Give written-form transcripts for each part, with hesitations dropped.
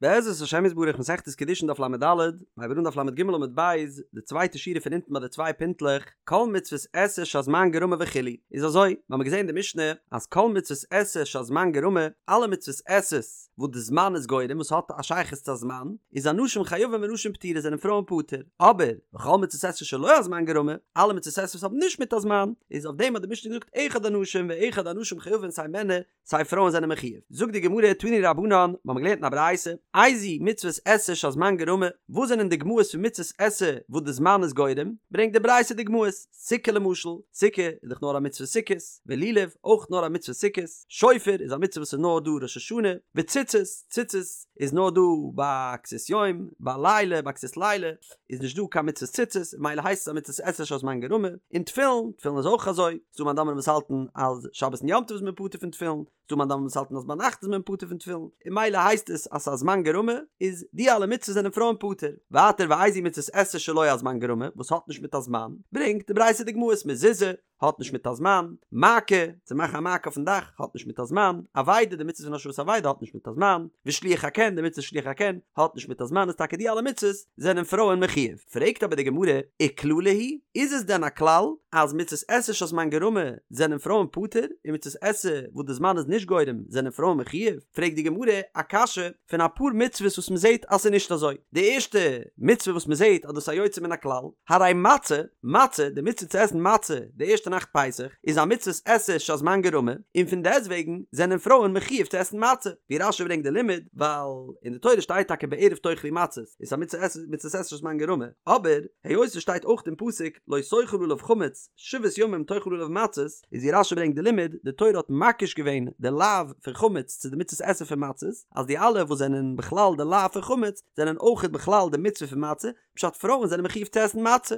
בעזרת השם יתברך מסכת קידושין דף לד, מ'הייבט אן דף לג עמוד ב', די צווייטע שורה פון אונטן ביי די צוויי פינטלעך, כל מצוות עשה שהזמן גרמא וכו', איז אזוי, מיר האבן געזען אין די משנה אז כל מצוות עשה שהזמן גרמא, אלע מצוות עשה וואס די זמן איז גורם וואס האט א שייכות צו א זמן, איז אנשים חייבים ונשים פטורות זענען פרויען פטור, אבער וכל מצוות עשה שלא הזמן גרמא, אלע מצוות עשה וואס האבן נישט מיט א זמן, איז אויף דעם האט די משנה געזאגט אחד אנשים ואחד הנשים חייבין סיי מענער סיי פרויען זענען מחיוב. זאגט די גמרא תנו רבנן, מיר האבן געלערנט אין א ברייתא, איזוהי מצוות עשה שהזמן גרמא, וואס זענען דוגמאות פון מצוות עשה וואס די זמן איז גורם, ברענגט די ברייתא דוגמאות, סוכה למשל, סוכה איז דאך נאר א מצוה סוכות, ולולב, אויך נאר א מצוה סוכות, שופר איז א מצוה וואס איז נאר דא ראש השנה, וציצית, ציצית איז נאר דא ביי כסות יום, ביי לילה, ביי כסות לילה איז נישט דא קיין מצוות ציצית, ממילא הייסט עס א מצוות עשה שהזמן גרמא, און תפילין, תפילין איז אויך אזוי. ס'דא מאן דאמרים וואס האלטן אז שבת און יום טוב איז מען פטור פון תפילין, ס'דא מאן דאמרים וואס האלטן אז ביינאכט איז מען פטור פון תפילין, און ממילא הייסט עס אז ס'איז א זמן גרמא, איז די אלע מצוות זענען פרויען פטור. ווייטער ואיזוהי מצות עשה שלא הזמן גרמא, וואס האט נישט מיט א זמן, ברענגט די ברייתא דוגמאות מזוזה, האט נישט מיט א זמן, מעקה, צו מאכן א מעקה אויפן דאך, האט נישט מיט א זמן, אבידה, די מצוה פון השבת אבידה האט נישט מיט א זמן, ושילוח הקן, די מצוה שילוח הקן, האט נישט מיט א זמן, איז טאקע די אלע מצוות זענען פרויען מחיוב. פרעגט אבער די גמרא, וכללא הוא איז עס דען א כלל אז מצות עשה שהזמן גרמא זענען פרויען פטור און מצות עשה וואס די זמן איז נישט גורם זענען פרויען מחיוב? פרעגט די גמרא א קשיא פון אפאר מצוות וואס מען זעט אז ס'איז נישט אזוי. די ערשטע מצוה וואס מען זעט אז דאס איז א יוצא מן הכלל, הרי מצה, מצה, די מצוה צו עסן מצה די ערשטע נאכט פסח, איז א מצות עשה שהזמן גרמא, און פון דעסטוועגן זענען פרויען מחיוב צו עסן מצה, ווי רש"י ברענגט די לימוד, ווייל אין די תורה שטייט טאקע בערב תאכלו מצות, איז א מצות עשה מצות עשה שהזמן גרמא, אבער היות עס שטייט אויך אין פסוק לא תאכל עליו חמץ שבעת ימים תאכל עליו מצות, איז ווי רש"י ברענגט די לימוד, די תורה האט מקיש געווען די לאו פון חמץ צו די מצות עשה פון מצות, אז די אלע וואס זענען בכלל די לאו פון חמץ זענען אויכעט בכלל די מצוה פון מצה, פשט פרויען זענען מחיוב צו עסן מצה,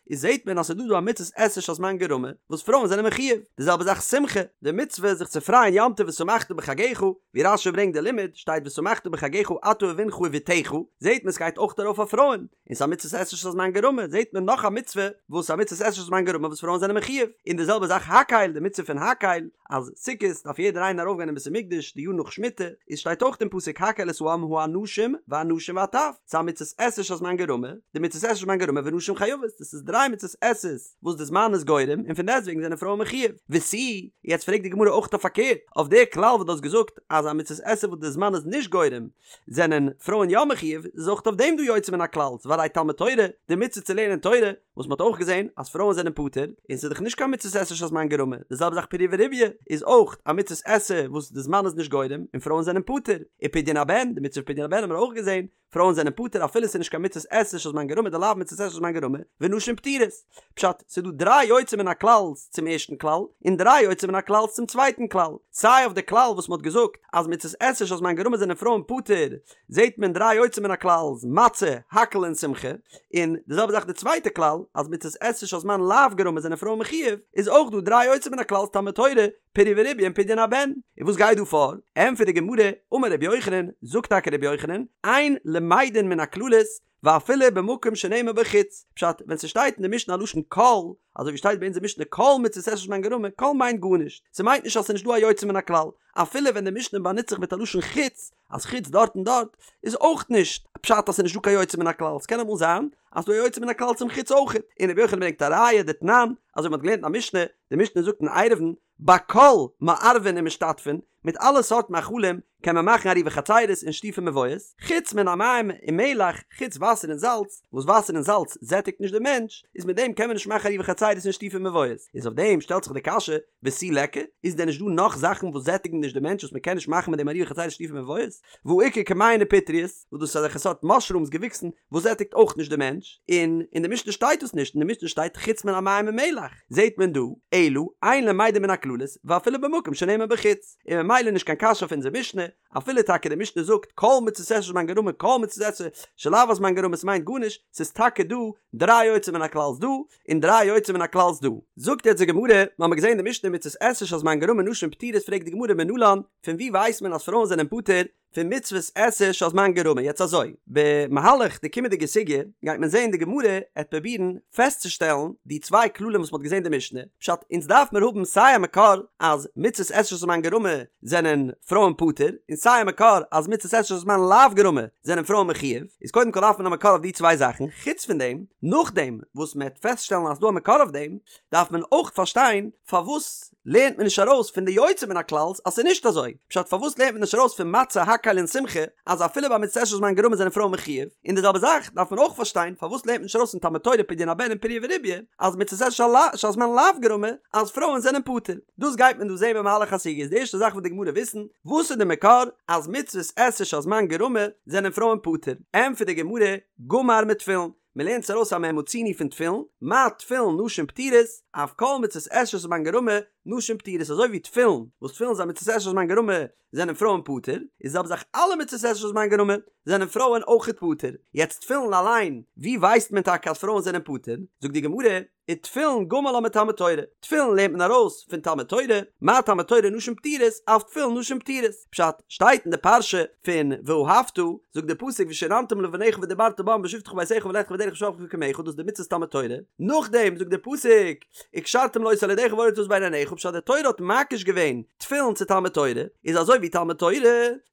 איז זעהט מען אז ס'איז דא דא א מצות עשה שהזמן גרמא וואס פרויען זענען מחיוב, די זעלבע זאך שמחה, די מצוה זיך צו פרייען יום טוב ושמחת בחגך, ווי רש"י ברענגט די לימוד, שטייט ושמחת בחגך אתה ובנך ובתך, זעהט מען ס'גייט אויך ארויף אויף פרויען, און ס'איז א מצות עשה שהזמן גרמא, זעהט מען נאך א מצוה וואס א מצות עשה שהזמן גרמא וואס פרויען זענען מחיוב, און די זעלבע זאך הקהל, די מצוה פון הקהל, אז סוכות דארף יעדער איינער ארויפגיין אין בית המקדש די יאר נאך שמיטה, איז שטייט אויך אין פסוק הקהל את העם האנשים והנשים והטף, ס'איז א מצות עשה שהזמן גרמא, די מצות עשה שהזמן גרמא ונשים חייבות, דאס איז דריי מצות עשה וואס די זמן איז גורם און פון דעסטוועגן זענען פרויען מחיוב, ותו, יעצט פרעגט די גמרא אויך אויף פארקערט, אויף די כלל וואס דו האסט געזאגט אז א מצות עשה וואס די זמן איז נישט גורם זענען פרויען יא מחיוב, איז אויך אויף דעם דא יוצא מן הכלל, והרי תלמוד תורה, די מצוה צו לערנען תורה, וואס מ'האט אויך געזען אז פרויען זענען פטור, און ס'איז דאך נישט קיין מצות עשה שהזמן גרמא, די זעלבע זאך פריה ורביה איז אויך א מצות עשה וואס די זמן איז נישט גורם און פרויען זענען פטור, ופדיון הבן, די מצוה פון פדיון הבן האבן מיר אויך געזען, פרויען זענען פטור אפילו ס'איז נישט קיין מצות עשה שהזמן גרמא דלאו מצות עשה שהזמן גרמא, ונשים פטורות. פשט, ס'איז דא דריי יוצא מן הכלל'ס צום ערשטן כלל, און דריי יוצא מן הכלל'ס צום צווייטן כלל. סיי אויף די כלל וואס מ'האט געזאגט אז מצות עשה שהזמן גרמא זענען פרויען פטור, זעט מען דריי יוצא מן הכלל'ס, מצה, הקהל און שמחה, און די זעלבע זאך די צווייטע כלל, אז מצות עשה שהזמן לאו גרמא זענען פרויען מחיוב, איז אויך דא דריי יוצא מן הכלל'ס תלמוד תורה, פריה ורביה און פדיון הבן. און וואס גייט דא פאר? ענטפערט די גמרא, אמר רבי יוחנן, זאגט טאקע רבי יוחנן, אין למדין מן הכללות, ואפילו במקום שנאמר בו חוץ, פשט, ווען ס'שטייט אין די משנה א לשון כל, אזוי ווי שטייט ביי אונזער משנה כל מצות עשה שהזמן גרמא, כל מיינט גארנישט, ס'מיינט נישט אז ס'נישט דא א יוצא מן הכלל, אפילו ווען די משנה באנוצט זיך מיט א לשון חוץ, אז חוץ דארט און דארט, איז אויך נישט פשט אז ס'נישט דא קיין יוצא מן הכלל, ס'קען אמאל זיין אז ס'דא א יוצא מן הכלל צום חוץ אויך, און רבי יוחנן ברענגט א ראיה דתנן, אזוי ווי מ'האט געלערנט אין א משנה, די משנה זאגט אין עירובין, בכל מערבין ומשתתפין, מיט אלע סארט מאכלים קען מען מאכן עירובי חצירות און שיתופי מבואות, חוץ מן המים ומלח, חוץ וואסער און זאלץ, וואס וואסער און זאלץ זעטיגט נישט די מענטש, איז מיט דעם קען מען נישט מאכן עירובי חצירות און שיתופי מבואות, איז אויף דעם שטעלט זיך די קשיא, ותו ליכא, איז דען נישט דא נאך זאכן וואס זעטיגן נישט די מענטש וואס מען קען נישט מאכן מיט דעם עירובי חצירות און שיתופי מבואות? והא איכא כמהין ופטריות, וואס דאס איז אזעלכע סארט מאשרומס געוויקסן וואס זעטיגט אויך נישט די מענטש, און אין די משנה שטייט דאס נישט, אין די משנה שטייט חוץ מן המים ומלח, זעט מען דא, אלא, אין למדין מן הכללות, ואפילו במקום שנאמר בו חוץ, און ממילא נישט קיין קשיא אויף אונזער משנה, אפילו טאקע די משנה זאגט כל מצות עשה שהזמן גרמא כל מצות עשה שלאו הזמן גרמא ס'מיינט גארנישט, ס'איז טאקע דא דריי יוצא מן הכלל'ס דא, און דריי יוצא מן הכלל'ס דא. זאגט יעצט די גמרא, מ'האמיר געזען אין די משנה מצות עשה שהזמן גרמא נשים פטורות פרעגט די גמרא מנלן, פון ווי ווייסט מען אז פרויען זענען פטור? פון מצוות עשה שהזמן גרמא. יעצט אזוי, במהלך די קומענדיגע סוגיא גייט מען זען די גמרא עט פרובירן פעסטצושטעלן די צוויי כללים וואס מ'האט געזען די משנה, פשט אונז דארף מיר האבן סיי א מקור אז מצוות עשה שהזמן גרמא זענען פרויען פטור, און סיי א מקור אז מצוות עשה שהזמן לאו גרמא זענען פרויען מחויב, איז קודם כל דארף מען א מקור אויף די צוויי זאכן, חוץ פון דעם, נאכדעם וואס מ'עט פעסטשטעלן אז ס'דא א מקור אויף דעם, דארף מען אויך פארשטיין פארוואס לערנט מען נישט ארויס פון די יוצא מן הכלל'ס אז ס'איז נישט אזוי? פשט פארוואס לערנט מען נישט ארויס פון מצה הקהל און שמחה אז אפילו ביי מצות עשה שהזמן גרמא זענען פרויען מחויב? און די זעלבע זאך דארף מען אויך פארשטיין פארוואס לערנט מען נישט ארויס פון תלמוד תורה פדיון הבן און פריה ורביה אז מצות עשה שהזמן לאו גרמא אז פרויען זענען פטור? דאס גייט מען דא זעהן במהלך הסוגיא איז די ערשטע זאך וואס די גמרא וויסן וואס איז די מקור אז מצוות עשה שהזמן גרמא זענען פרויען פטור? ענטפערט די גמרא גמר מתפילין מען לערנט עס ארויס א מה מצינו פון תפילין, מה תפילין נשים פטורות, אף כל מצות עשה שהזמן גרמא, נשים פטורות, אזוי ווי תפילין, וואס תפילין איז א מצות עשה שהזמן גרמא, זענען פרויען פטור, איז זעלבע זאך אלע מצות עשה שהזמן גרמא, זענען פרויען אויכעט פטור. יעצט תפילין אליין, ווי ווייסט מען טאקע אז פרויען זענען פטור? זאגט די גמרא, ותפילין גמר לה מתלמוד תורה, תפילין לערנט מען ארויס פון תלמוד תורה, מה תלמוד תורה נשים פטורות, אף תפילין נשים פטורות, פשט, שטייט אין די פרשה פון ואהבת, זאגט די פסוק ושננתם לבניך ודברת בם בשבתך בביתך ובלכתך בדרך ובשכבך ובקומך, דאס איז די מצוות תלמוד תורה, נאכדעם זאגט די פסוק וקשרתם לאות על ידך והיה לטבעת בין עיניך, פשט די תורה האט מקיש געווען תפילין צו תלמוד תורה, איז אזוי ווי תלמוד תורה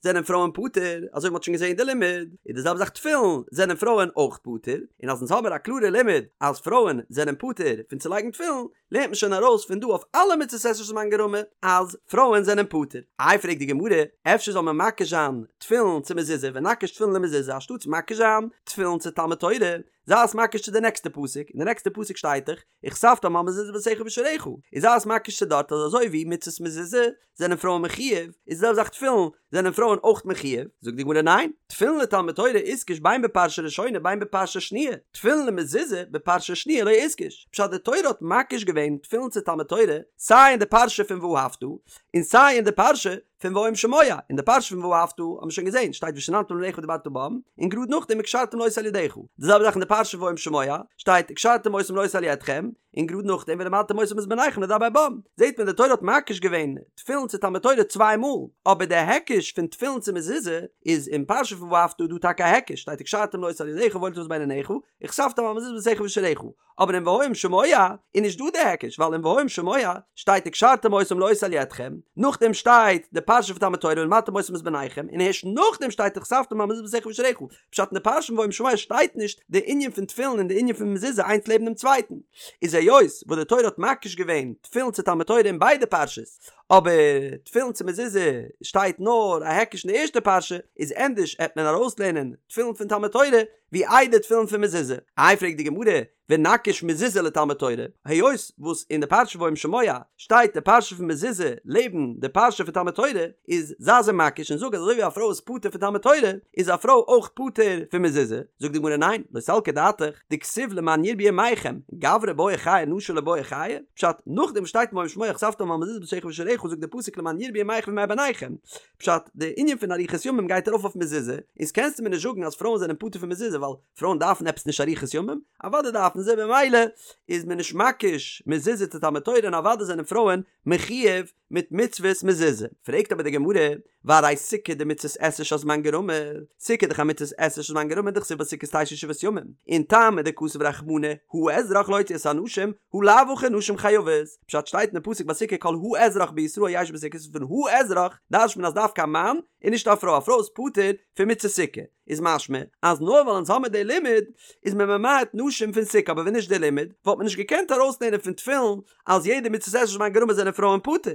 זענען פרויען פטור, אזוי ווי מ'האט שוין געזען אין די לימוד, איז די זעלבע זאך תפילין זענען פרויען אויך פטור, און אז אונז האמיר א קלארע לימוד אז פרויען זענען פטור פון צו לייגן תפילין, לערנט מען שוין ארויס פון דא אויף אלע מצות עשה שהזמן גרמא אז פרויען זענען פטור. איי פרעגט די גמרא, אפשר זאל מען מקיש זיין תפילין צו מזוזה ונקיש תפילין למזוזה אנשטאטס מקיש זיין תפילין צו תלמוד תורה, זיי עס מקיש צו די נעקסטע פסוק, אין די נעקסטע פסוק שטייט דאך וכתבתם על מזוזות ביתך ובשעריך, איז זיי עס מקיש צו דארט אז אזוי ווי מצות מזוזה זענען פרויען מחויב, איז די זעלבע זאך תפילין זענען פרויען אויך מחויב, זאגט די גמרא ניין, תפילין לתלמוד תורה איתקש בין בפרשה ראשונה בין בפרשה שניה, תפילין למזוזה בפרשה שניה לא איתקש, פשט די תורה האט מקיש געווען תפילין צו תלמוד תורה סיי אין די פרשה פון ואהבת און סיי אין די פרשה פון והיה אם שמוע, אין די פרשה פון ואהבת האט מען שוין געזען שטייט ושננתם לבניך ודברת בם, און גראד נאכדעם וקשרתם לאות על ידך, די זעלבע זאך אין די פרשה פון והיה אם שמוע שטייט וקשרתם אותם לאות על ידכם, און גראד נאכדעם ולמדתם אותם את בניכם לדבר בם, זעט מען די תורה האט מקיש געווען תפילין צו תלמוד תורה צוויי מאל, אבער די היקש פון תפילין צו מזוזה איז אין פרשה פון ואהבת דא טאקע א היקש, שטייט וקשרתם לאות על ידך והיה לטבעת בין עיניך, וכתבתם על מזוזות ביתך ובשעריך, אבער אין והיה אם שמוע איז נישט דא די היקש ווייל אין והיה אם שמוע שטייט וקשרתם אותם לאות על ידכם, נאכדעם שטייט די פרשה פון תלמוד תורה ולמדתם אותם את בניכם, און הערשט נאכדעם שטייט וכתבתם על מזוזות ביתך ובשעריך, פשט אין די פרשה פון והיה אם שמוע שטייט נישט די ענין פון תפילין און די ענין פון מזוזה איינס לעבן דעם צווייטן, איז היות וואס די תורה האט מקיש געווען תפילין צו תלמוד תורה אין ביידע פרשות, אבער תפילין צו מזוזה שטייט נאר א היקש אין די ערשטע פרשה, איז ענדערש עט מען ארויסלערנען תפילין פון תלמוד תורה ווי איידער תפילין פון מזוזה. איי פרעגט די גמרא, ונקיש מזוזה לתלמוד תורה, היות וואס אין די פרשה והיה אם שמוע שטייט די פרשה פון מזוזה לעבן די פרשה פון תלמוד תורה, איז זיי זיי מקיש און זאג אז אזוי ווי א פרוי איז פטור פון תלמוד תורה, איז א פרוי אויך פטור פון מזוזה, זאגט די גמרא ניין, לא סלקא דעתך, דכתיב למען ירבו ימיכם, גברי בעי חיי נשי לא בעו חיי, פשט, נאכדעם וואס שטייט אין והיה אם שמוע וכתבתם על מזוזות ביתך ובשעריך זאגט די פסוק למען ירבו ימיכם וימי בניכם, פשט, די ענין פון אריכות ימים גייט ארויף אויף מזוזה, איז קענסטו מיר נישט זאגן אז פרויען זענען פטור פון מזוזה ווייל פרויען דארפן עפעס נישט אריכות ימים? אוודאי דארפן זיי במילא איז מען נישט מקיש מזוזה צו תלמוד תורה און אוודאי זענען פרויען מחויב מיט מצוות מזוזה. פרעגט אבער די גמרא, והרי סוכה דמצות עשה שהזמן גרמא, סוכה איז דאך א מצות עשה שהזמן גרמא דכתיב בסוכות תשבו שבעת ימים, און טעמא דכתב רחמנא האזרח להוציא את האנשים, הא לאו הכי נשים חייבות, פשט שטייט אין די פסוק ביי סוכה כל האזרח בישראל ישבו בסוכות פון האזרח דרש'ט מען אז דווקא א מאן און נישט א פרוי, א פרוי איז פטור פון מצות סוכה. איז משמע אז נאר ווייל אונז האמיר די לימוד איז מען ממעט נשים פון סוכה אבער ווען נישט די לימוד וואלט מען נישט געקענט ארויסלערנען פון תפילין אז יעדע מצות עשה שהזמן גרמא זענען פרויען פטור.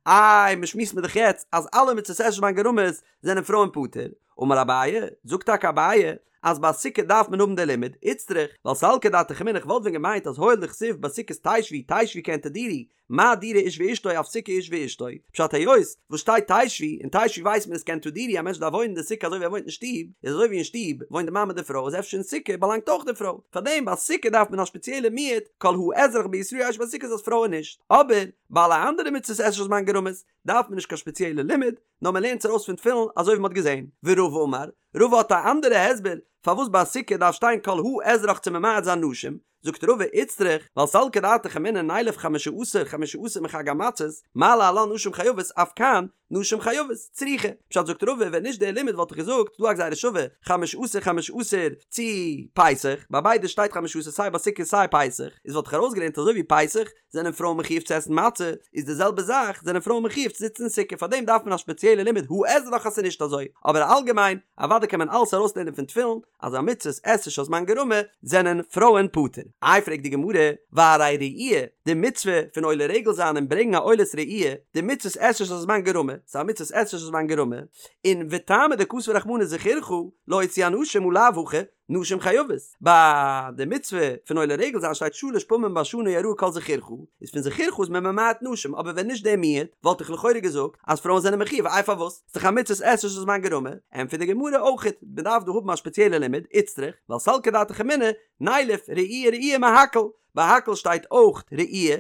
איי מ'שמועסט מיר דאך יעצט אז אלע מצות עשה שהזמן גרמא'ס זענען פרויען פטור. אמר אביי, זאגט טאקע אביי אז ביי סוכה דארף מען האבן די לימוד, איצטריך, ווייל סלקא דעתך אמינא איך וואלט ווען געמיינט אז הואיל דכתיב בסוכות תשבו תשבו כעין תדורו מה דירה איש ואשתו אף סוכה איש ואשתו, פשט היות וואס שטייט תשבו, און תשבו ווייסט מען איז כעין תדורו א מענטש דארף וואוינען אין די סוכה אזוי ווי ער וואוינט אין שטוב, איז אזוי ווי אין שטוב וואוינט די מאן מיט די פרוי איז אפשר אין סוכה באלאנגט אויך די פרוי, פארדעם ביי סוכה דארף מען א שפעציעלע מיעוט כל האזרח בישראל ישבו בסוכות אז פרויען נישט, אבער ביי אלע אנדערע מצוות עשה שהזמן גרמא'ס דארף מען נישט קיין שפעציעלע לימוד, נאר מען לערנט עס ארויס פון תפילין אזוי ווי מען האט געזען, ורבא אמר. רבא האט א אנדערע הסבר פארוואס ביי סוכה דארף שטיין כל האזרח צו ממעט זיין נשים, זאגט רבא איצטריך, ווייל סלקא דעתך אמינא נילף חמשה עשר חמשה עשר מחג המצות, מה להלן נשים חייבות אף כאן נשים חייבות, צריכא. פשט זאגט רבא ווען נישט דער לימוד וואלט איך געזאגט ס'דא א גזירה שווה חמשה עשר חמשה עשר צו פסח, ביי ביידע שטייט חמשה עשר סיי ביי סוכה סיי פסח, איז וואלט איך ארויסגעלערנט אזוי ווי פסח זענען פרויען מחיוב צו עסן מצה, איז די זעלבע זאך זענען פרויען מחיוב צו זיצן אין סוכה פארדעם דארף מען א שפעציעלע לימוד האזרח אז ס'איז נישט אזוי, אבער אלגעמיין אוודאי קען מען אלעס ארויסלערנען פון תפילין אז א מצות עשה שהזמן גרמא זענען פרויען פטור. איי פרעגט די גמרא, והרי ראי', די מצוה פון עולה רגל זיין און ברענגן א עולת ראי', דמצות עשה שהזמן גרמא, ס'איז א מצות עשה שהזמן גרמא, און וטעמא דכתב רחמנא זכורך להוציא אנשים הא לאו הכי, נשים חייבות. ביי די מצוה פון עולה רגל זיין שטייט שלש פעמים בשנה יראה כל זכורך, איז פון זכורך איז מען ממעט נשים, אבער ווען נישט דער מיעוט, וואלט איך לכאורה געזאגט אז פרויען זענען מחיוב, איי פארוואס? ס'איז דאך א מצות עשה שהזמן גרמא, ענטפערט די גמרא אויכעט, מען דארף דא האבן א שפעציעלע לימוד, איצטריך, ווייל סלקא דעתך אמינא, נילף ראי' ראי' מהקהל, ביי הקהל שטייט אויך ראי',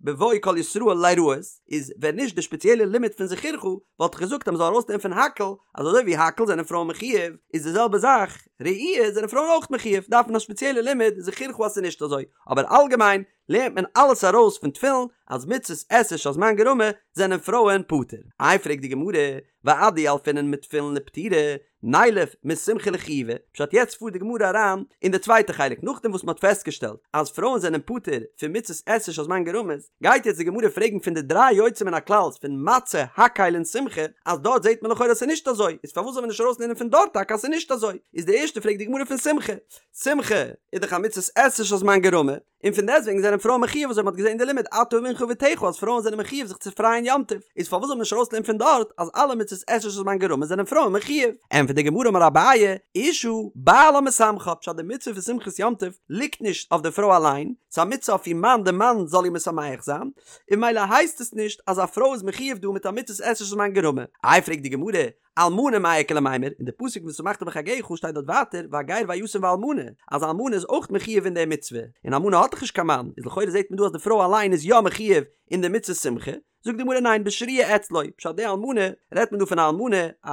בבוא כל ישראל ליראות, איז ווען נישט די שפעציעלע לימוד פון זכורך, וואלט איך געזאגט אז מען זאל ארויסנעמען פון הקהל, אז אזוי ווי הקהל זענען פרויען מחיוב, איז די זעלבע זאך, ראי' זענען פרויען אויך מחיוב, דארף מען א שפעציעלע לימוד זכורך אז ס'איז נישט אזוי, אבער אלגעמיין, לערנט מען אלעס ארויס פון תפילין אז מצות עשה שהזמן גרמא זענען פרויען פטור. איי פרעגט די גמרא, ואדילפינן מתפילין לפטירה, נילף משמחה לחיובה, פשט יעצט פארט די גמרא אריין אין די צווייטע חלק נאכדעם וואס מען האט פעסטגעשטעלט אז פרויען זענען פטור פון מצות עשה שהזמן גרמא, גייט יעצט די גמרא פרעגן פון די דריי יוצא מן הכלל'ס פון מצה, הקהל און שמחה, אז דארט זעט מען לכאורה אז ס'איז נישט אזוי, איז פארוואס זאל מען נישט ארויסלערנען פון דארט טאקע אז ס'איז נישט אזוי? איז די ערשטע פרעגט די גמרא פון שמחה, שמחה איז דאך א מצות עשה שהזמן גרמא, און פון דעסטוועגן זענען פרויען מחיוב אזוי מ'האט געזען אין די לימוד אתה ובנך ובתך אז פרויען זענען מחיוב זיך צו פרייען יום טוב, איז פארוואס זאל מען נישט ארויסלערנען פון דארט אז אלע מצות עשה שהזמן גרמא זענען פרויען מחיוב? ענטפערט די גמרא אמר אביי, אשה בעלה משמחה, פשט די מצוה פון שמחת יום טוב ליגט נישט אויף די פרוי אליין, ס'איז א מצוה אויף איר מאן די מאן זאל איר משמח זיין, און ממילא הייסט עס נישט אז א פרוי איז מחיוב דא מיט א מצות עשה שהזמן גרמא. איי פרעגט די גמרא, אלמנה מאי איכא למימר, אין די פסוק ושמחת בחגך שטייט דארט ווייטער והגר והיתום והאלמנה, אז אלמנה איז אויך מחיוב אין די מצוה, און אלמנה האט דאך נישט קיין מאן, איז לכאורה זעט מען דא אז די פרוי אליין איז יא מחיוב אין די מצות שמחה, זאגט די גמרא ניין בשרויה אצלו, פשט די אלמנה רעדט מען דא פון א אלמנה א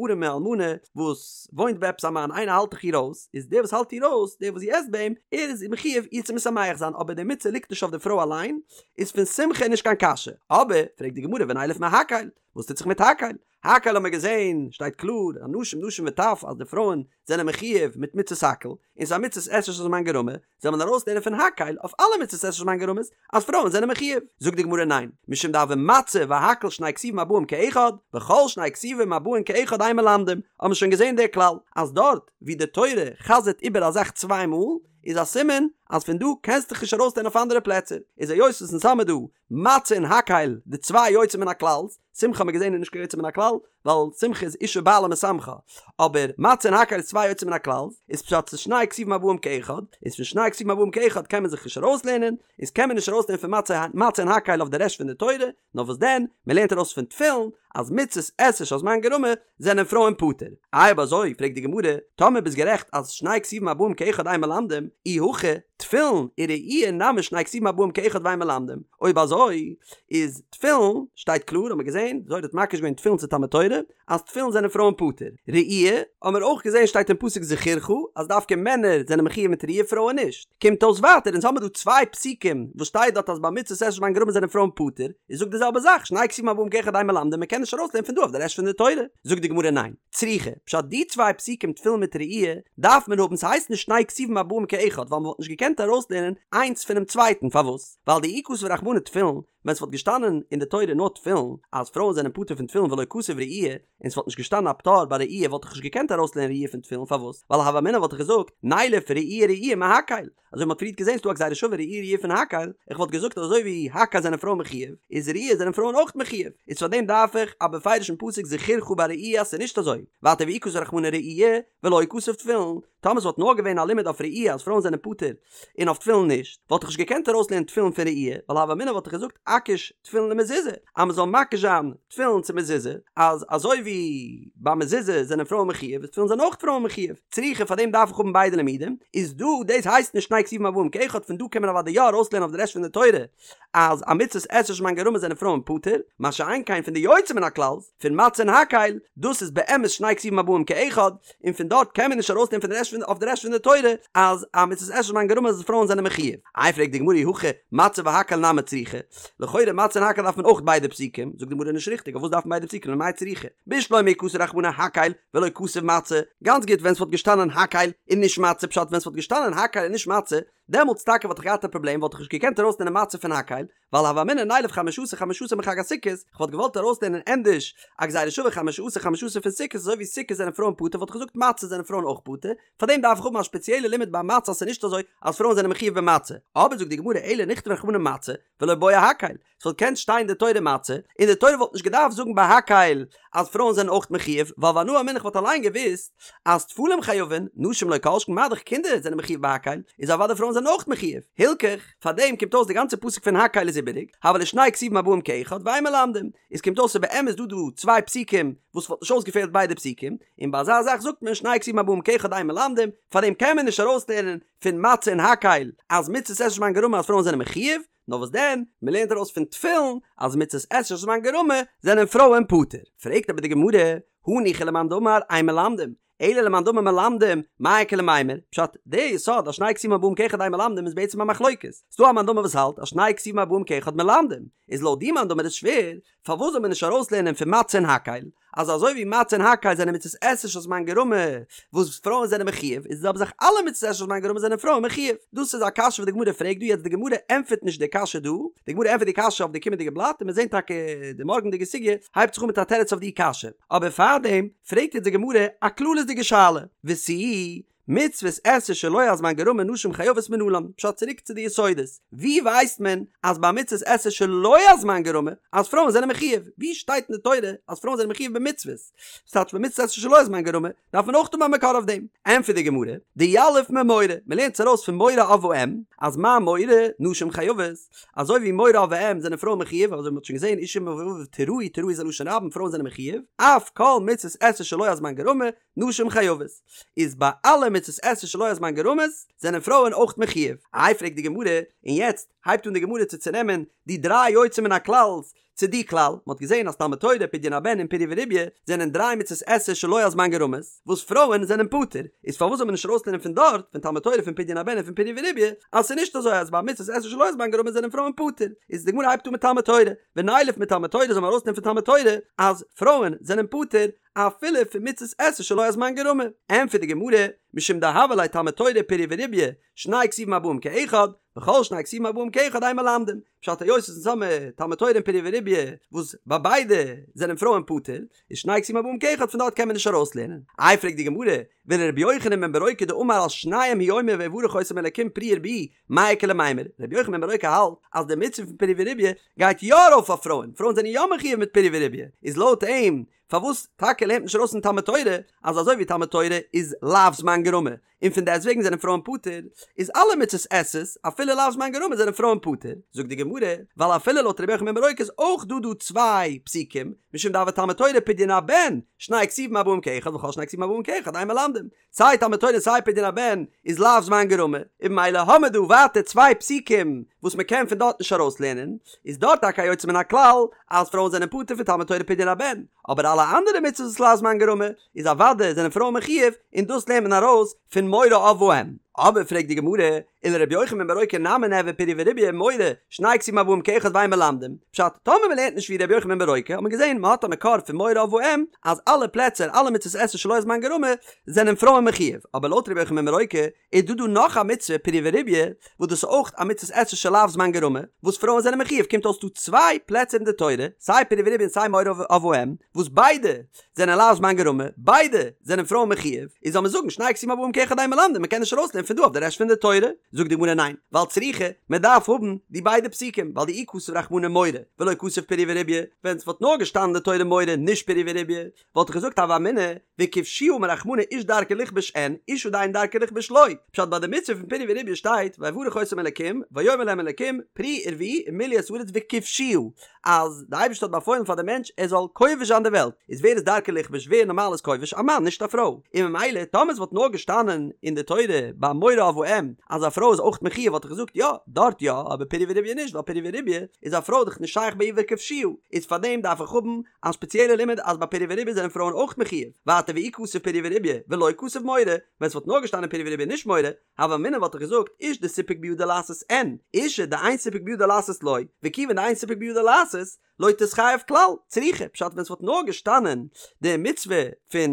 ארעמע אלמנה וואס וואוינט ביי עפעס א מאן איינער האלט דאך איר אויס, איז דער וואס האלט איר אויס דער וואס זי עסט ביי אים ער איז מחיוב איר צו משמח זיין אבער די מצוה ליגט נישט אויף די פרוי אליין, איז פון שמחה נישט קיין קשיא, אבער פרעגט די גמרא ונילף מהקהל, וואס טוט זיך מיט הקהל? הקהל האט מען געזען, שטייט קלאר, אנשים נשים וטף אז די פרויען זענען מחיוב מיט מצות הקהל, און ס'איז א מצות עשה שהזמן גרמא, זאל מען ארויסלערנען פון הקהל אויף אלע מצות עשה שהזמן גרמא'ס אז פרויען זענען מחיוב. זאגט די גמרא ניין, משום דהוה מצה והקהל שני כתובים הבאים כאחד, וכל שני כתובים הבאים כאחד אין מלמדים, האט מען שוין געזען די כלל, אז דארט ווי די תורה חזר'ט איבער א זאך צוויי מאל, איז א סימן אז פון דא קענסטו דיך נישט ארויסלערנען אויף אנדערע פלעצער, איז היות וואס אונז האמיר דא מצה און הקהל די צוויי יוצא מן הכלל'ס, שמחה האט מען געזען איז נישט קיין יוצא מן הכלל, ווייל שמחה איז אשה בעלה משמחה, אבער מצה און הקהל איז צוויי יוצא מן הכלל'ס, איז פשט ס'איז שני כתובים הבאים כאחד, איז פון שני כתובים הבאים כאחד קען מען זיך נישט ארויסלערנען, איז קען מען נישט ארויסלערנען פון מצה מצה און הקהל אויף די רעשט פון די תורה, נאר וואס דען, מען לערנט ארויס פון תפילין אז מצות עשה שהזמן גרמא זענען פרויען פטור. איי אויב אזוי פרעגט די גמרא, טאמער ביסט גערעכט אז שני כתובים הבאים כאחד אין מלמדים, אי הכי, תפילין וראי' נמי שני כתובים הבאים כאחד ואין מלמדים, אויב אזוי איז תפילין, שטייט קלאר האט מען געזען, די זוהר האט מקיש געווען תפילין צו תלמוד תורה, אז תפילין זענען פרויען פטור. ראי' האט מען אויך געזען שטייט אין פסוק זכורך אז דווקא מענער זענען מחיוב מיט ראי' פרויען נישט. קומט אויס ווייטער אונז האמיר דא צוויי פסוקים וואס שטייט דארט אז ביי מצות עשה שהזמן גרמא זענען פרויען פטור, איז זאג די זעלבע זאך שני כתובים הבאים כאחד אין מלמדים מען קען נישט ארויסלערנען פון דא אויף די רעשט פון די תורה. זאגט די גמרא ניין. צריכא, פשט די צוויי פסוקים תפילין מיט ראי' דארף מען האבן ס'הייסט נישט שני כתובים הבאים כאחד ווייל מ'וואלט נישט געקענט ארויסלערנען איינס פונעם צווייטן פארוואס? ווייל דאי כתב רחמנא תפילין ווען ס'וואלט געשטאנען אין די תורה נאר תפילין אז פרויען זענען פטור פון תפילין ולא כתב ראי' און ס'וואלט נישט געשטאנען א פטור ביי ראי' וואלט איך נישט געקענט ארויסלערנען ראי' פון תפילין פארוואס? ווייל הוה אמינא וואלט איך געזאגט נילף ראי' ראי' מהקהל אזוי מ'האט פריערט געזען ס'דא א גזירה שווה ראי' ראי' פון הקהל איך וואלט געזאגט אז אזוי ווי הקהל זענען פרויען מחיוב איז ראי' זענען פרויען אויך מחיוב איז פאר דעם דארף איך א בפירוש'ן פסוק זכורך ביי ראי' אז ס'איז נישט אזוי ווייטער ואי כתב רחמנא ראי' ולא כתב תפילין. טאמער ס'וואלט נאר געווען א לימוד אויף ראי' אז פרויען זענען פטור און אויף תפילין נישט, וואלט איך נישט געקענט ארויסלערנען תפילין פון ראי', ווייל הוה אמינא וואלט איך געזאגט אקיש תפילין למזוזה, אז מ'זאל מקיש זיין תפילין צו מזוזה, אז אזוי ווי ביי מזוזה זענען פרויען מחיוב, איז תפילין זענען אויך פרויען מחיוב, צריכא פאר דעם דארף איך האבן ביידע לימודים, איז דא דאס הייסט נישט שני כתובים הבאים כאחד פון דא קען מען אוודאי יא ארויסלערנען אויף די רעשט פון די תורה אז א מצות עשה שהזמן גרמא זענען פרויען פטור, מה שאין כן פון די יוצא מן הכלל'ס פון מצה און הקהל, דאס איז באמת שני כתובים הבאים כאחד, און פון דארט קען מען נישט ארויסנעמען פון די רעשט פון אויף די רעשט פון די תורה אז א מצות עשה שהזמן גרמא אז פרויען זענען מחיוב. איי פרעגט די גמרא אי הכי מצה והקהל נמי צריכי, לכאורה מצה און הקהל דארף מען אויך ביידע פסוקים, זאגט די גמרא נישט ריכטיג אויף וואס דארף מען ביידע פסוקים למאי צריכי, בשלמא אי כתב רחמנא הקהל ולא כתב מצה, גאנץ גוט ווען ס'וואלט געשטאנען הקהל און נישט מצה פשט ווען ס'וואלט געשטאנען הקהל און נישט מצה דעמאלטס טאקע וואלט איך געהאט א פראבלעם וואלט איך נישט געקענט ארויסנעמען מצה פון הקהל ווייל הוה אמינא נילף חמשה עשר חמשה עשר מחג הסוכות, איך וואלט געוואלט ארויסלערנען ענדערש א גזירה שווה חמשה עשר חמשה עשר פון סוכות אזוי ווי סוכות זענען פרויען פטור וואלט איך געזאגט מצה זענען פרויען אויך פטור, פארדעם דארף איך האבן א שפעציעלע לימוד ביי מצה אז ס'איז נישט אזוי אז פרויען זענען מחיוב במצה, אבער זאגט די גמרא אלא נכתוב רחמנא מצה ולא בעי הקהל, ס'וואלט געקענט שטיין אין די תורה מצה, און די תורה וואלט נישט געדארפט זאגן ביי הקהל אז פרויען זענען אויך מחיוב, ווייל ואנא אמינא כ'וואלט אליין געוואוסט אז טפלים חייבין, נשים לא כל שכן מה דאך קינדער זענען מחיוב ביי הקהל, איז אוודאי פרויען זענען אויך מחיוב. הילכך, פארדעם קומט אויס די גאנצע פסוק פון הקהל איז איבעריג, הוו להו שני כתובים הבאים כאחד ואין מלמדים, איז קומט אויס ס'איז באמת דא דא צוויי פסוקים וואס וואלט נישט אויסגעפעלט ביידע פסוקים, און ביי אזא זאך זאגט מען שני כתובים הבאים כאחד אין מלמדים, פארדעם קען מען נישט ארויסלערנען פון מצה און הקהל אז מצות עשה שהזמן גרמא אז פרויען זענען מחיוב, נאר וואס דען, מען לערנט ארויס פון תפילין אז מצות עשה שהזמן גרמא זענען פרויען פטור. פרעגט אבער די גמרא, הניחא למאן דאמר אין מלמדים, אלא למאן דאמר מלמדים, מאי איכא למימר? פשט, די יסוד אז שני כתובים הבאים כאחד אין מלמדים איז בעצם א מחלוקת. ס'דא א מאן דאמר וואס האלט אז שני כתובים הבאים כאחד מלמדים, איז לויט די מאן דאמר איז שווער, פארוואס זאל מען נישט ארויסלערנען פון מצה און הקהל אז אזוי ווי מצה און הקהל זענען מצות עשה שהזמן גרמא וואס פרויען זענען מחיוב איז די זעלבע זאך אלע מצות עשה שהזמן גרמא זענען פרויען מחיוב דאס איז א קשיא וואס די גמרא פרעגט דא יעצט די גמרא ענטפערט נישט די קשיא דא די גמרא ענטפערט די קשיא אויף די קומענדיגע בלאט און מיר זעהן טאקע די מארגענדיגע סוגיא הייבט זיך אן מיט א תירוץ אויף די קשיא אבער פארדעם פרעגט יעצט די גמרא א כללית'דיגע שאלה ותו מצוות עשה שלא הזמן גרמא נשים חייבות מנלן, פשט צוריק צו די יסודות, ווי ווייסט מען אז ביי מצוות עשה שלא הזמן גרמא אז פרויען זענען מחיוב, ווי שטייט אין די תורה אז פרויען זענען מחיוב במצוות, ס'טייטש ביי מצוות עשה שלא הזמן גרמא דארף מען אויך האבן א מקור אויף דעם, ענטפערט די גמרא, דיליף ממורא, מען לערנט עס ארויס פון מורא אב ואם, אז מה מורא נשים חייבות, אזוי ווי מורא אב ואם זענען פרויען מחיוב, אזוי ווי מען האט שוין געזען איש אמו ואביו תיראו תיראו איז א לשון רבים פרויען זענען מחיוב, אף כל מצוות עשה שלא הזמן גרמא, נשים חייבות, איז ביי אלע מצות עשה שלא הזמן גרמא'ס זענען פרויען אויך מחיוב. איי פרעגט די גמרא, און יעצט הייבט אן די גמרא צו צונעמען די דריי יוצא מן הכלל'ס צו די כלל, מען האט געזען אז תלמוד תורה, פדיון הבן און פריה ורביה זענען דריי מצות עשה שלא הזמן גרמא'ס וואס פרויען זענען פטור, איז פארוואס זאל מען נישט ארויסלערנען פון דארט, פון תלמוד תורה פון פדיון הבן און פון פריה ורביה, אז ס'איז נישט אזוי אז ביי מצות עשה שלא הזמן גרמא זענען פרויען פטור, איז די גמרא הייבט אן מיט תלמוד תורה, ונילף מתלמוד תורה זאל מען ארויסנעמען פון תלמוד תורה אז פרויען זענען פטור, אפילו פון מצות עשה שלא הזמן גרמא. ענטפערט די גמרא, משום דהוה ליה תלמוד תורה פריה ורביה, שני כתובים הבאים כאחד, וכל שני כתובים הבאים כאחד אין מלמדים. פשט היות אונז האמיר תלמוד תורה און פריה ורביה וואס ביי ביידע זענען פרויען פטור, איז שני כתובים הבאים כאחד פון דארט קען מען נישט ארויסלערנען. איי פרעגט די גמרא, ולרבי יוחנן בן ברוקה דאמר על שניהם הוא אומר ויברך אותם אלקים פרו ורבו, מאי איכא למימר, רבי יוחנן בן ברוקה האלט אז די מצוה פון פריה ורביה גייט יא ארויף אויף פרויען, פרויען זענען יא מחיוב מיט פריה ורביה, איז לויט אים פארוואס טאקע לערנט מען נישט ארויס פון תלמוד תורה אז אזוי ווי תלמוד תורה איז לאו זמן גרמא און פון דעסט וועגן זענען פרויען פטור, איז אלע מצות עשה'ס אפילו לאו זמן גרמא זענען פרויען פטור, זאגט די גמרא, ווייל אפילו לויט רבי יוחנן בן ברוקה איז אויך דא דא צוויי פסוקים, משום דהוה תלמוד תורה פדיון הבן, שני כתובים הבאים כאחד וכל שני כתובים הבאים כאחד אין מלמדים, סיי תלמוד תורה און סיי פדיון הבן איז לאו זמן גרמא, און ממילא האמער דא ווייטער צוויי פסוקים וואס מען קען פון דארט נישט ארויסלערנען, איז דארט טאקע א יוצא מן הכלל אז פרויען זענען פטור פון תלמוד תורה פדיון הבן, אבער אלע אנדערע מצוות וואס לאו זמן גרמא איז אוודאי זענען פרויען מחיוב, און דאס לערנט מען ארויס פון מורא אב ואם. אבער פרעגט די גמרא, ולרבי יוחנן בן ברוקה נמי ניהוו פריה ורביה מורא, שני כתובים הבאים כאחד ואין מלמדים, פשט, טאמער מען לערנט נישט ווי רבי יוחנן בן ברוקה האט מען געזען מען האט א מקור פון מורא אב ואם אז אלע פלעצער אלע מצוות עשה שלא הזמן גרמא זענען פרויען מחיוב, אבער לויט רבי יוחנן בן ברוקה איז דא דא נאך א מצוה פריה ורביה וואס דאס איז אויך א מצוות עשה שלאו זמן גרמא וואס פרויען זענען מחיוב קומט אויס דא צוויי פלעצער אין די תורה סיי פריה ורביה און סיי מורא אב ואם וואס ביידע זענען לאו זמן גרמא, ביידע זענען פרויען מחיוב, איז זאל מען זאגן שני כתובים הבאים כאחד אין מלמדים, מען קען נישט ארויסלערנען. פון דא אויף די רעשט פון די תורה? זאגט די גמרא ניין, ווייל צריכא, מען דארף האבן די ביידע פסוקים, ווייל דאי כתב רחמנא מורא, ולא כתב פריה ורביה, ווען ס'וואלט נאר געשטאנען אין די תורה מורא נישט פריה ורביה, וואלט איך געזאגט הוה אמינא, וכבשוה אמר רחמנא איש דרכו לכבוש אין, אשה דאין דרכה לכבוש לא. פשט ביי די מצוה פון פריה ורביה שטייט ויברך אותם אלקים ויאמר להם אלקים פרו ורבו ומלאו את הארץ וכבשוה אז די אייבערשטער האט באפוילן פאר די מענטש ער זאל כובש זיין די וועלט איז ווער איז דרכו לכבוש ווער נארמאל איז כובש א מאן נישט א פרוי און ממילא טאמער עס וואלט נאר געשטאנען אין די תורה ביי מורא אב ואם אז א פרוי איז אויך מחויב וואלט איך געזאגט יא דארט יא אבער פריה ורביה נישט ווייל פריה ורביה איז א פרוי דאך נישט שייך ביי איר וכבשוה איז פארדעם דארף איך האבן א ספעציעלע לימוד אז ביי פריה ורביה זענען פרויען אויך מחויב, ווייטער ואי כתב פריה ורביה ולא כתב מורא, ווען ס'וואלט נאר געשטאנען פריה ורביה נישט מורא, הוה אמינא וואלט איך געזאגט איש דסיפק בידו לעשות אין, אשה דאין סיפק בידה לעשות לא, וכיוון דאין סיפק בידה לעשות, לא תתחייב כלל, צריכא, פשט ווען ס'וואלט נאר געשטאנען די מצוה פון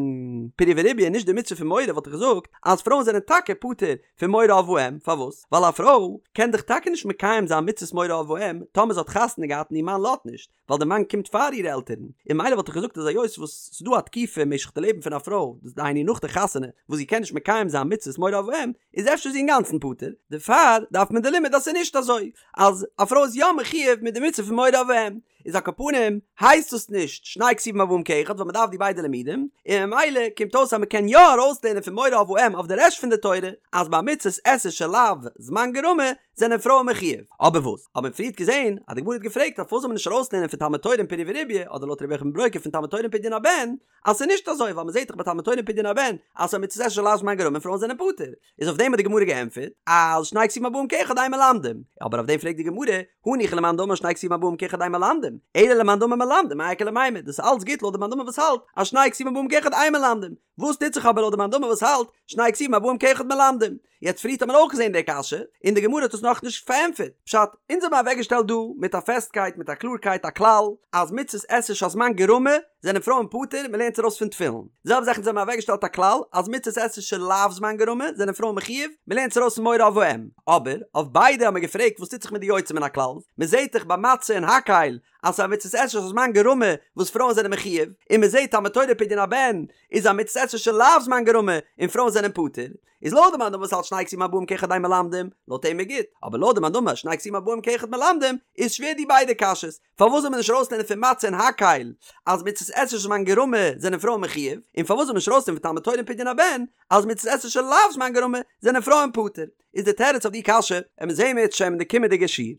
פריה ורביה און נישט די מצוה פון מורא וואלט איך געזאגט אז פרויען זענען טאקע פטור פון מורא אב ואם, פארוואס? ווייל א פרוי קען דאך טאקע נישט מקיים זיין מצוות מורא אב ואם טאמער זי האט חתונה געהאט און איר מאן לאזט נישט, ווייל די מאן קומט פאר אירע עלטערן, און ממילא וואלט איך געזאגט אז היות וואס ס'איז דא א תקופה משך די לעבן פון א פרוי, דאס דהיינו נאך די חתונה, וואס זי קען נישט מקיים זיין מצוות מורא אב ואם, איז אפשר זי אינגאנצן פטור, דערפאר דארף מען די לימוד אז ס'איז נישט אזוי, אז א פרוי איז יא מחויב מיט די מצוה פון מורא אב ואם, איז על כל פנים הייסט דאס נישט שני כתובים הבאים כאחד ווייל מ'דארף די ביידע לימודים, און ממילא קומט אויס אז מ'קען יא ארויסלערנען פון מורא אב ואם אויף די רעשט פון די תורה, אז ביי מצות עשה שלאו זמן גרמא זענען פרויען מחויב. אבער וואס? האט מען פריערט געזען אז די גמרא האט געפרעגט אז פארוואס זאל מען נישט ארויסלערנען פון תלמוד תורה און פריה ורביה אדער לויט רבי יוחנן בן ברוקה פון תלמוד תורה און פדיון הבן אז ס'איז נישט אזוי ווייל מ'זעט דאך ביי תלמוד תורה און פדיון הבן אז ס'איז א מצות עשה שלאו זמן גרמא און פרויען זענען פטור איז אויף דעם האט די גמרא געענטפערט אז שני כתובים הבאים כאחד אין מלמדים אבער אויף דעם פרעגט די גמרא הניחא למאן דאמר שני כתובים הבאים כאחד אין מלמדים אלא למאן דאמר מלמדים מאי איכא למימר דאס איז אלץ גוט לויט די מאן דאמר וואס האלט אז שני כתובים הבאים כאחד אין מלמדים וואס טוט זיך אבער לויט די מאן דאמר וואס האלט שני כתובים הבאים כאחד מלמדים יעצט פריערט האט מען אויך געזען די קשיא, און די גמרא האט עס נאכנישט פארענטפערט. פשט, אונז האבן אוועקגעשטעלט דא מיט א פעסטקייט מיט א קלארקייט א כלל, אז מצות עשה שהזמן גרמא זענען פרויען פטור, מען לערנט עס ארויס פון תפילין. די זעלבע זאך אונז האבן אוועקגעשטעלט א כלל, אז מצות עשה שלאו זמן גרמא זענען פרויען מחויב, מען לערנט עס ארויס פון מורא אב ואם. אבער, אויף ביידע האבן מיר געפרעגט וואס טוט זיך מיט די יוצא מן הכלל, מען זעט דאך ביי מצה און הקהל אז ס'איז א מצות עשה שהזמן גרמא וואס פרויען זענען מחויב, און מען זעט תלמוד תורה פדיון הבן איז א מצות עשה שלאו זמן גרמא און פרויען זענען פטור. איז לויט די מאן דאמר וואס האלט שני כתובים הבאים כאחד אין מלמדים, לויט אים איז גוט, אבער לויט די מאן דאמר שני כתובים הבאים כאחד מלמדים, איז שווער די ביידע קשיות, פארוואס זאל מען נישט ארויסלערנען פון מצה און הקהל אז מצות עשה שהזמן גרמא זענען פרויען מחויב, און פארוואס זאל מען נישט ארויסלערנען פון תלמוד תורה און פדיון הבן אז מצות עשה שלאו זמן גרמא זענען פרויען פטור? איז די תירוץ אויף די קשיא, וועלן מיר זעהן אם ירצה השם אין די קומענדיגע שיעור.